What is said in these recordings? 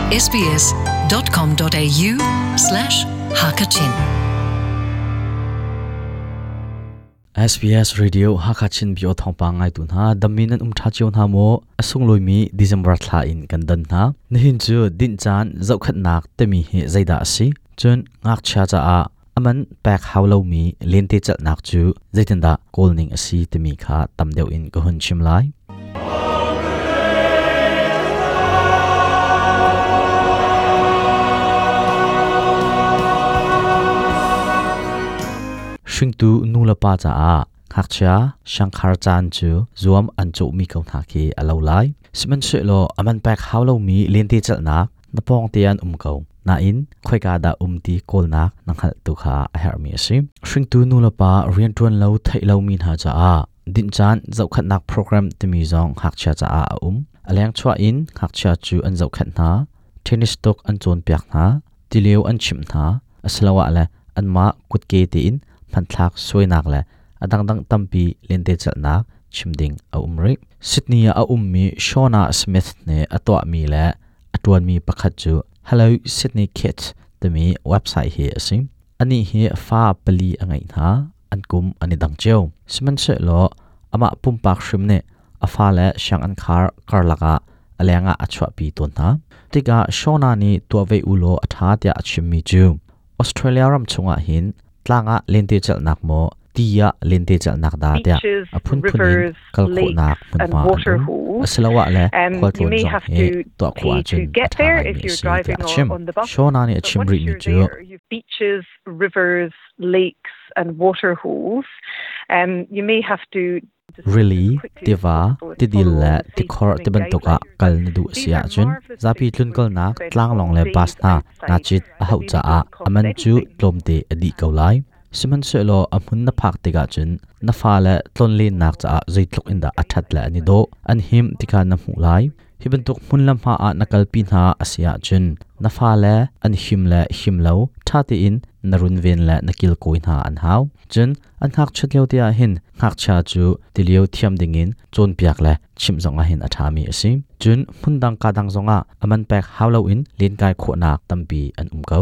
sbs.com.au slash hakachin SBS Radio Hakachin bio thawngpang ngai tu hna dammi nan um tha cio hna maw a sunglawi mi December thla in kan dan hna nihin cu dinh caan zohkhatnak timi hi zeidah a si cun ngakchia caah aman pek hau lomi lente celhnak cu zeitindah kawl ning a si timi kha tam deuh in ka hun chim lai. Hringtu nu le pa caah ngakchia siangkhar caan cu zuam an cawhmi ko hna khi a lo lai. Sihmanhsehlaw aman pek hau lomi lente celhnak na pawng te an um ko. Nain khoika dah um ti kawlnak na hngalh tu kha a herhmi a si. Hringtu nu le pa rianṭuan lo theih lomi hna caah dinh caan zohkhenhnak program timi zong ngakchia caah a um. A leng chuah in ngakchia cu an zohkhenh hna, tennis tuk an cawnpiak hna, tilio an chimh hna, asiloah le anmah kutke tein hmanthlak suainak le a dangdang tampi lentecelhnak chim ding a um rih. Sydney ah a ummi Shauna Smith nih a tuahmi le a ṭuanmi pakhat cu Hello Sydney Kids timi website hi a si. Anih hi fa pali a ngeih hna, an kum an i dang cio. Sihmanhsehlaw amah pumpak hrim nih a fale sianginn khar karlak ah a lengah a chuahpi tawn hna. Tikah Shauna nih tuah ve u law a ṭha tiah a chimmi cu Australia ram chungah hin tlang ah lentecelhnak maw ti ah lentecelhnak dah tiah beaches, a phunphun in rivers, kal khawhnak lakes, and hmunhma an water um. holes. Asiloah le You khualtlawn may zong have hi to tuah khawh pay to ahcun a get ṭha there ngaimi if a you're si tiah driving a or chim. on the bus. Shauna nih a But chim once rihmi you're cu there, you've beaches, rivers, lakes, and water holes. You may have to Rili, as quickly as tiva, possible and tidil follow le all the safe tikhor swimming tibantuk ah guidelines. kal na duh a These si are ahcun marvelous zapi places where you can tlunkalnak spend tlanglawng whole le bus days hna naa outside cit a that hauh really caah don't cost a man cu anything. tlawmte a dih ko lai. Sihmanhsehlaw a hmun na phak tikah cun na fale tlonlennak caah zeitluk in dah a ṭhat le an i dawh, an him ti kha na hmuh lai. Hi bantuk hmun le hma ah na kalpi hna a si ahcun na fale an him le him lo ṭha tein na runven le na kilkawi hna an hau. Cun an ngakchiat lio te ah hin ngakchia cu tilio thiam dingin cawnpiak le chimh zongah hin a ṭhami a si. Cun hmundang ka dang zongah a man pek hau loin lenkai khawhnak tampi an um ko.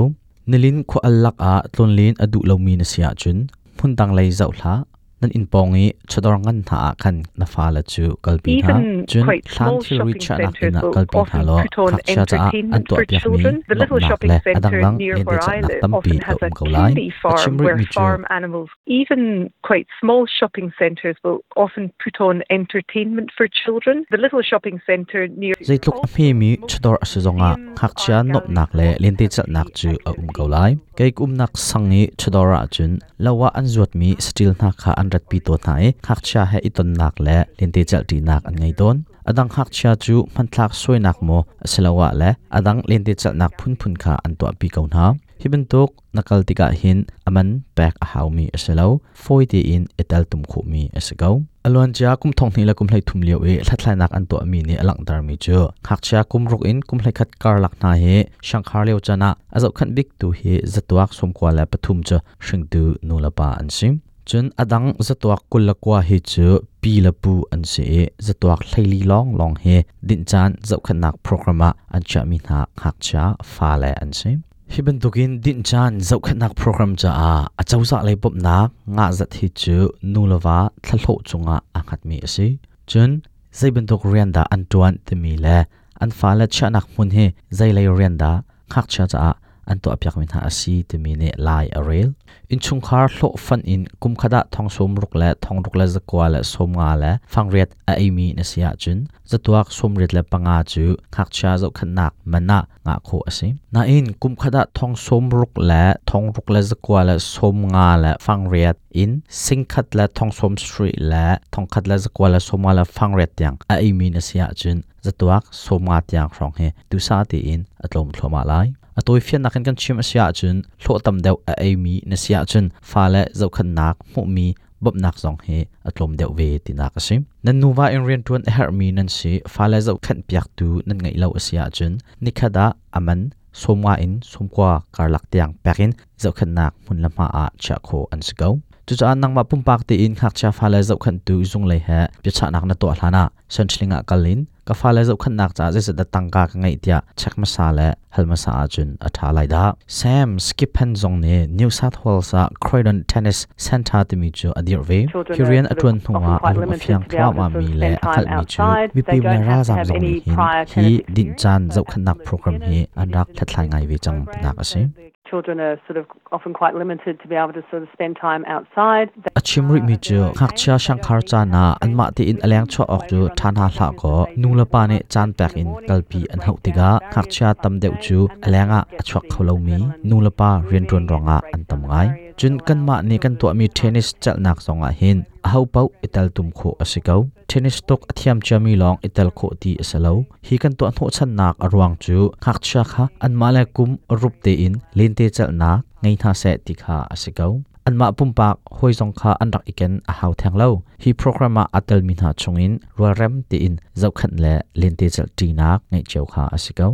Nilin khua al lakah tlonlen a duh lomi na si ahcun hmundang lei zoh hlah. Nan inn pawng i chawdawr ngan hna ah khan na fale cu kalpi hna. Even Cun quite hlan small thilri shopping chiahnak centres inn ah will kalpi hna often law put on ngakchia caah an entertainment for tuahpiakmi children. The little nuamhnak shopping le a centre dangdang near where I lentecelhnak live tampi often a has um a ko lai. kiddie A farm chim where rihmi cu farm animals, even quite small shopping centres will often put on entertainment for children. The little shopping centre near Zeitluk a also hmemi most chawdawr a si zongah museums, ngakchia art galleries nuamhnak will le often have lentecelhnak free cu a um ko activities. lai. Kei ka umnak sang i chawdawr ahcun lo ah an zuatmi saṭil hna kha an ratpi tawn hna i ngakchia he i tonnak le lentecelhṭinak an ngei tawn. A dang ngakchia cu hmanthlak suainak maw asiloah le a dang lentecelhnak phunphun kha an tuahpi ko hna. Hi bantuk na kal tikah hin a man pek a haumi a si lo, fawi tein i teltum khawhmi a si ko. A luancia kum 20 le kum 13 lio i hlathlainak an tuahmi nih a langhtermi cu ngakchia kum ruk in kum 21 karlak hna hi siangkhar lio caan ah a zohkhenh biktu hi zatuak 93 cu hringtu nulepa an si. Cun a dang zatuak 29 hi cu pi le pu an si i zatuak 14 lawnglawng hi dinh caan zohkhenhnak program ah an chiahmi hna ngakchia fale an si. Hi bantukin dinh caan zohkhenhnak program caah acozah lei bawmhnak ngahzat hi cu nu le va thlahlawh cungah aa hngatmi a si. Cun zei bantuk rian dah an ṭuan timi le an fale chiahnak hmun hi zei lei rian dah ngakchia caah an tuahpiakmi hna a si timi nih lai a rel. Innchungkhar hlawhfan in kum khat ah thong 60 le thong ruk le zakua le 50 le fangriat a eimi na si ahcun zatuak 85 cu ngakchia zohkhenhnak man ah ngah khawh a si. Nain kum khat ah thong 60 le thong ruk le zakua le 50 le fangriat in 1,000 le thong 70 le thong khat le zakua le 50 le fangriat tiang a eimi na si ahcun zatuak 50 tiang hrawng hi duhsah tein a tlawm thluahmah lai. A tawifiannak in kan chim a si ahcun hlawh tam deuh a eimi na si ahcun fale zohkhenhnak hmuhmi bawmhnak zong hi a tlawm deuh ve tinak a si. Nan nuva in rianṭuan a herhmi nan si, fale zohkhenh piaktu nan ngeih lo a si ahcun nikhat ah a man 50 in 90 karlak tiang pek in zohkhenhnak hmun le hma ah chiah khawh an si ko. Cucaah nangmah pumpak tein ngakchia fale zohkhenhtu zunglei he biachahnak na tuah hlanah Centrelink ah kal in Ka fale zohkhenhnak caah zeizat dah tangka ka ngeih tiah check hmasa le hal hmasa ahcun a ṭha lai dah. Sam Skippen zong nih New South Wales ah Croydon Tennis Centre timi cu a dirh ve. Hi rian a ṭuan hnuah a lung a fiang thluahmahmi le a hngalhmi cu mipi le ralzaam zong nih hin hi dinh caan zohkhenhnak program hi an rak hlathlai ngai ve cang tinak a si. Children are sort of often quite limited to be able to sort of spend time outside. A chim rihmi cu ngakchia siangkhar caan ah anmah tein a leng chuah awk cu ṭha hna hlah kaw nulepa nih caan pek in kalpi an hauh tikah ngakchia tam deuh cu a leng ah a chuak kho lomi nulepa rianṭuan ruangah an tam ngai. Cun kanmah nih kan tuahmi tennis celhnak zongah hin ahopaoh i teltum khawh a si ko. Tennis tuk a thiam ciami lawng i tel khawh ti a si lo. Hi kan tuah hnawhchannak a ruang cu ngakchia kha anmah le kum rup tein lente celhnak ngei hna seh ti kha a si ko. Anmah pumpak hawi zong kha an rak i ken a hau theng lo. Hi program ah aa telmi hna chungin rualrem tein zohkhenh le lente celh ṭinak ngeih cio kha a si ko.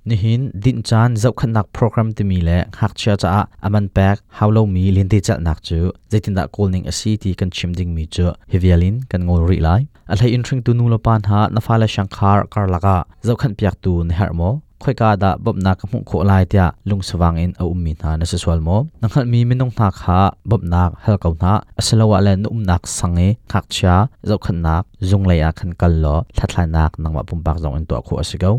Nihin dinh caan zohkhenhnak program timi le ngakchia caah a man pek hau lomi lentecelhnak cu zeitindah kawl ning a si ti kan chim dingmi cu hi vial in kan ngol rih lai. A hlei in hringtu nulepa hna na fale siangkhar karlak ah zohkhenhpiaktu na herh maw? Khoika dah bawmhnak ka hmuh khawh lai tiah lungsavang in a ummi hna na si sual maw? Na hngalhmi minung hna kha bawmhnak hal ko hna, asiloah le na umnak sang i ngakchia zohkhenhnak zung lei ah khan kal law hlathlainak nangmah pumpak zong in tuah khawh a si ko.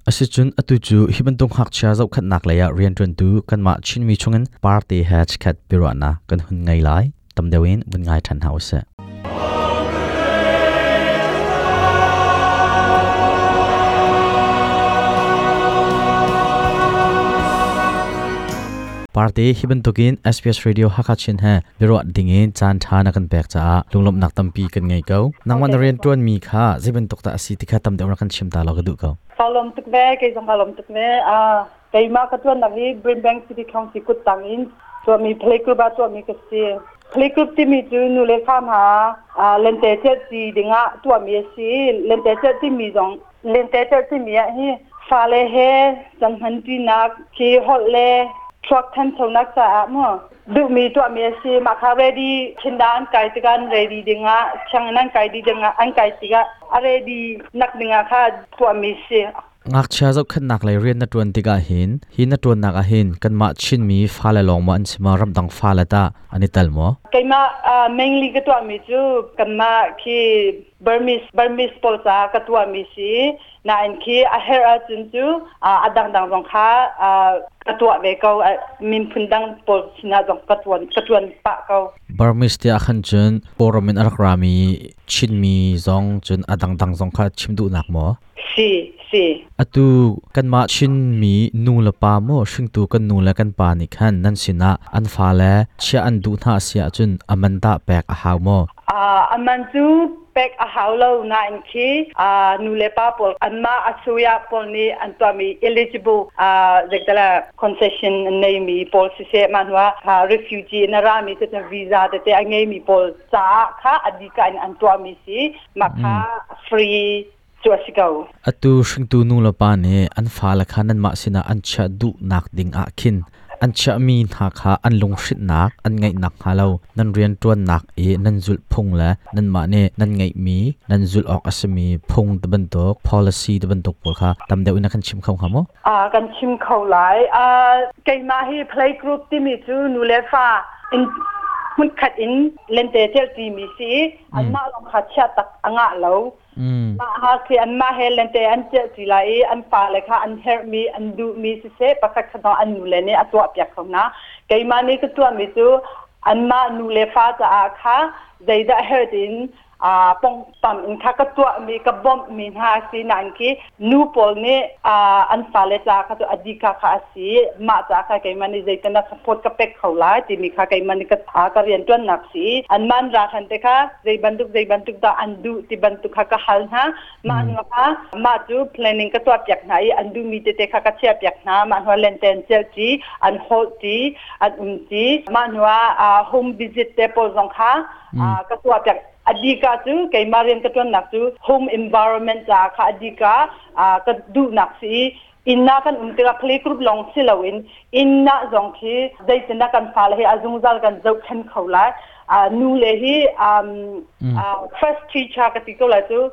Asicun atu cu hi bantuk ngakchia zohkhenhnak lei ah rianṭuantu kanmah Chinmi chungin party he chikkhat biaruahnak kan hun ngei lai. Tam deuh in vun ngai ṭhan hna usih. Party hi bantukin SBS Radio Hakha Chin he biaruah dingin caan ṭha na kan pek caah lunglawmhnak tampi kan ngei ko. Nangmah na rianṭuanmi kha zei bantuk dah a si ti kha tam deuh rak kan chim ta law ka duh ko. Ka lawm tuk ve, kei zong ka lawm tuk ve. Keimah ka ṭuannak hi Brimbank City Council kuttang in tuahmi playgroup ah tuahmi ka si. Playgroup timi cu nu le fa hna lente celhti dingah tuahmi a si. Lente celh timi zong lente celh timi ah hi fale he cang-hmanṭinak khi holh le thluak thanchonak caah mu duhmi tuahmi a si. Mah kha ready thinda an kai tikah an ready dingah sianginn an kai dih dingah an kai tikah a ready nak dingah kha tuahmi si. Ngakchia zohkhenhnak lei rian na ṭuan tikah hin hi na ṭuannak ah hin kanmah Chinmi fale lawng maw an si maw ramdang fale tah an i tel maw? Keimah mainly ka tuahmi cu kanmah khi Burmese Burmese pawl caah ka tuahmi si. Nain khi a herh ahcun cu a dangdang zong kha ka tuah ve ko. Miphun dang pawl sinah zong ka tuan ka tuan pah ko. Burmese tiah khan cun Kawlram in a rak rami Chinmi zong cun a dangdang zong kha chim duhnak maw? Si, si. Atu kanmah Chinmi nu le pa maw hringtu kan nu le kan pa nih khan nan sinah an fale chiah an duh hna a si ahcun a man tah pek a hau maw? A man cu pek a hau lo nain khi nu le pa pawl anmah a suya pawl nih an tuahmi eligible zeitala concession an neimi pawl siseh mah hnuah refugee in a rami cu visa tete a ngeimi pawl caah kha a dika in an tuahmi si mah kha free cu a si ko. Atu hringtu nu le pa nih an fale kha nanmah sinah an chiah duhnak ding ah khin an chiahmi hna kha an lunghrinhnak an ngeih nakhnga lo nan rianṭuannak i nan zulh phung le nanmah nih nan ngeihmi nan zulh awk a simi phung ti bantuk policy ti bantuk pawl kha tam deuh in na kan chim kho hnga maw? Kan chim kho lai. Keimah hi playgroup timi cu nu le fa in hmunkhat in lente celh timi si i anmah lawng kha chiah tak a ngah lo. Mah ha khi anmah he lente an celh ṭi lai i an fale kha an herhmi an duhmi siseh pakhat khat zong an nule nih a tuahpiak kho hna. Keimah nih ka tuahmi cu anmah nu le fa caah kha zeidah herh tiin pongpam in kha ka tuahmi ka bawmhmi hna a si nain khi nu pawl nih an fale ca kha cu a dika kha a si mah ca kha keimah nih zeitin dah support ka pek kho lai timi kha keimah nih ka rianṭuannak si an man ra khan te kha zei bantuk zei bantuk dah an duh ti bantuk kha ka hal hna mah hnu kha mah cu planning ka tuah piak hna i an duhmi tete kha ka chiah piak hna mah hnu lenten celh ti an holh ti an um ti mah hnu ah home visit te pawl zong kha ka tuah piak adika cu keimah rian ka tuannak cu home environment ca kha adika ka duhnak si i inn ah kan um tikah playgroup lawng si loin inn ah zong khi zeitindah kan fale hi a zungzal kan zohkhen kho lai. Nu le hi first teacher ka ti ko lai cu.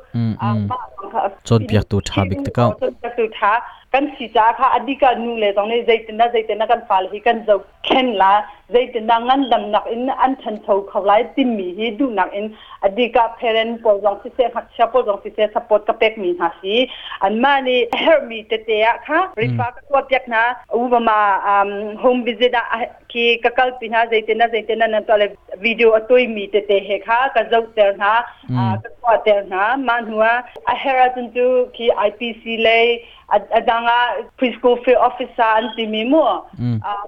Cawnpiaktu ṭha bik te ko. Cawnpiaktu ṭha kan si caah kha adika nu le zong nih zeitindah zeitindah kan fale hi kan zohkhenh la, zeitindah ngandamnak in an ṭhancho kho lai timi hi duhnak in adika parent pawl zong siseh, ngakchia pawl zong siseh, support ka pekmi hna si. Anmah nih herhmi tete ah kha refer ka tuah piak hna. Ubama home visit ah khi ka kalpi hna, zeitindah zeitindah nan tuah le video a tuimi tete he kha ka zohter hna, ka tuahter hna. Mah hnu ah a herh ahcun cu khi IPC lei a dang ah preschool field officer an timi mu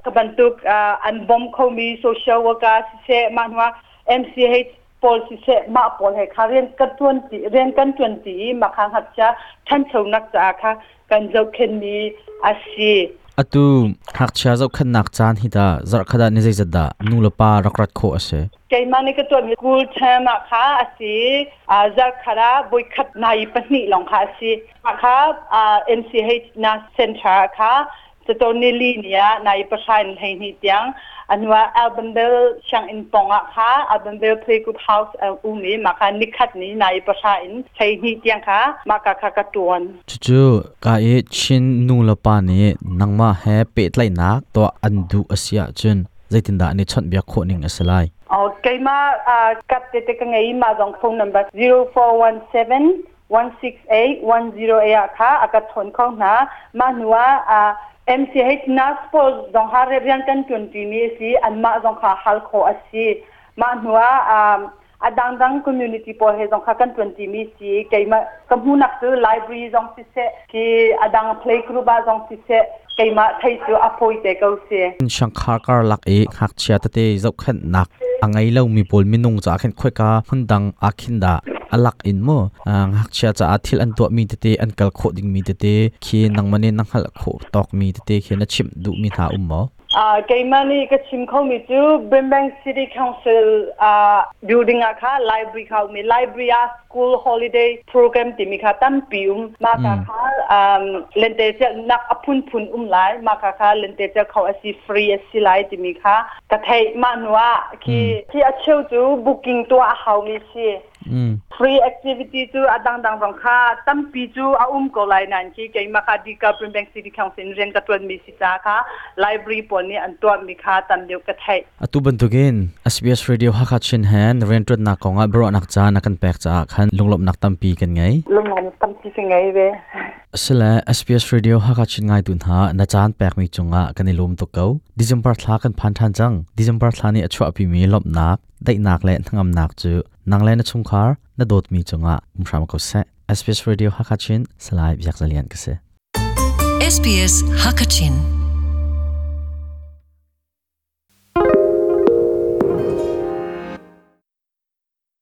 ka bantuk an bom khomi social worker siseh, mah hnu ah MCH pawl siseh, mah pawl he kha rian kan tuan ti rian kan tuan ti i mah kha ngakchia ṭhanchonak caah kha kan zohkhenhmi a si. Atu ngakchia zohkhenhnak caan hi ta zarhkhat ah ni zeizat dah nu le pa rak rat khawh a si? Keimah nih ka tuahmi school term ah kha a si. Zarhkhat ah voikhat nai pahnih lawng kha a si. Mah kha MCH na center kha Cacawn nili ni ah nai pahra in 12 tiang a hnuah Albanville sianginn pawng ah kha Albanville Playgroup House a um i mah kha nikhat ni nai pahra in 12 tiang kha mah ka kha ka tuan. Cucu ka i Chin nu le pa nih nangmah he pehtlaihnak tuah an duh a si ahcun zeitindah an i chawnhbiak khawh ning a si lai? Oh, keimah kat tete ka ngei mah zong phone number 0417 168 108 ah kha a ka chawn kho hna. Mah hnu ah MCH nurse pawl zong ha rian kan ṭuanṭi mi a si. Anmah zong kha hal khawh a si. Mah hnu ah a dangdang community pawl he zong kha kan ṭuanṭi mi si. Keimah ka hmuhnak cu library zong siseh, khi a dang play group ah zong siseh, keimah thei cu a fawi te ko si. Shangkhar karlak i ngakchia tete zohkhenhnak a ngei lomi pawl minung caah khin khoika hmundang ah khin dah a lak in mu ngakchia caah thil an tuahmi tete, an kal khawh dingmi tete khi nangmah nih na hngalh khawh tawkmi tete khi na chimh duhmi hna um maw? Keimah nih ka chim khomi cu Brimbank City Council building ah kha library kha um i library ah school holiday program timi kha tampi um. Mah ka kha lentecelhnak a phunphun um lai. Mah ka kha lentecelh kho a si, free a si lai timi kha ka theih. Mah hnu ah khi khi a cheu cu booking tuah a haumi si. Free activity cu a dangdang zong kha tampi cu a um ko lai nain khi keimah kha Dika Brimbank City Council in rian ka ṭuanmi si caah kha library pawl nih an tuahmi kha tam deuh ka theih. Atu bantukin SBS Radio Hakha Chin he na rianṭuannak kongah biaruahnak caan a kan pek caah khan lunglawmhnak tampi kan ngei. Lunglawmhnak tampi ka ngei ve. Asile SBS Radio Hakha Chin ngaitu hna na caan pekmi cungah kan i lawm tuk ko. December thla kan phan ṭhan cang. December thla nih a chuahpimi lawmhnak, daihnak le hnangamnak cu nang le na chungkhar na dawtmi cungah um hram ko seh. SBS Radio Hakha Chin Salai Biak Zalian ka si. SBS Hakachin.